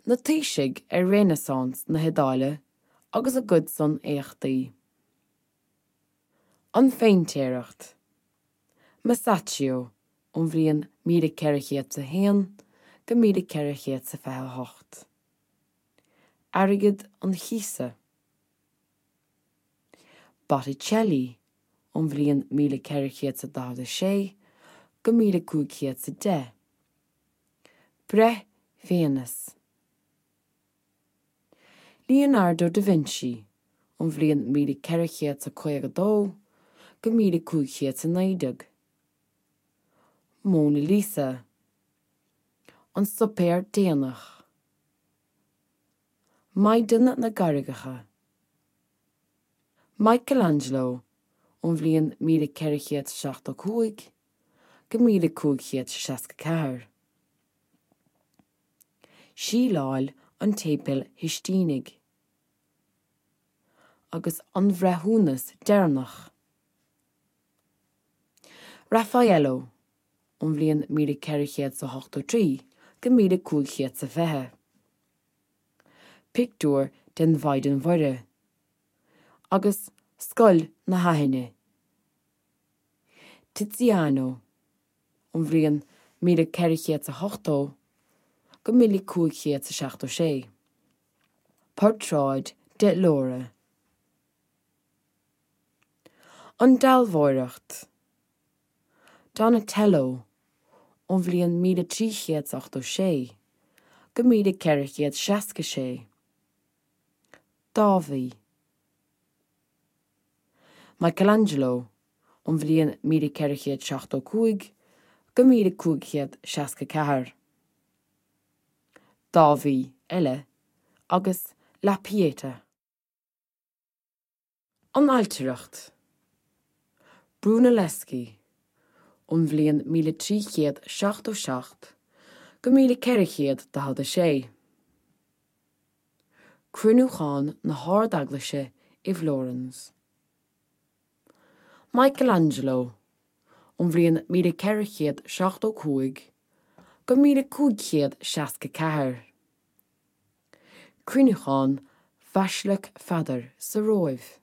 Na taoisigh ar Renaissance na hIodáile agus a gcuid-san éachtaí. An phéintéireacht. Masaccio ón bhliain 1401 go 1428. Airgead an Chíosa. Botticelli ón bhliain 1446 go 1510. Breith Véineas. Leonardo da Vinci, ón bhliain 1452 go 1519. Mona Lisa. An Suipéar Déanach. Maighdean na gCarraigeacha. Michelangelo, ón bhliain 1475 go 1564. Síleáil an tSéipéil Shistínigh agus An Breithiúnas Deireanach. Raffaello, ón bhliain 1483 go 1520. Pictiúr den Mhaighdean Mhuire agus Scoil na hAithine. Tiziano. ón bhliain 1480 go 1576. Portráid de Laura. An Dealbhóireacht. Donatello, ón bhliain 1386 go 1466. Dáiví. Michelangelo, ón bhliain 1475 go 1564. Dáiví eile agus La Pieta. An Ailtireacht. Brunelleschi, ón bhliain 1377 go 1446. Cruinniúchán na hArd-Eaglaise i bhFlórans. Michelangelo, ón bhliain 1475 go 1564. Cruinniúchán Bhaisleac Pheadair sa Róimh.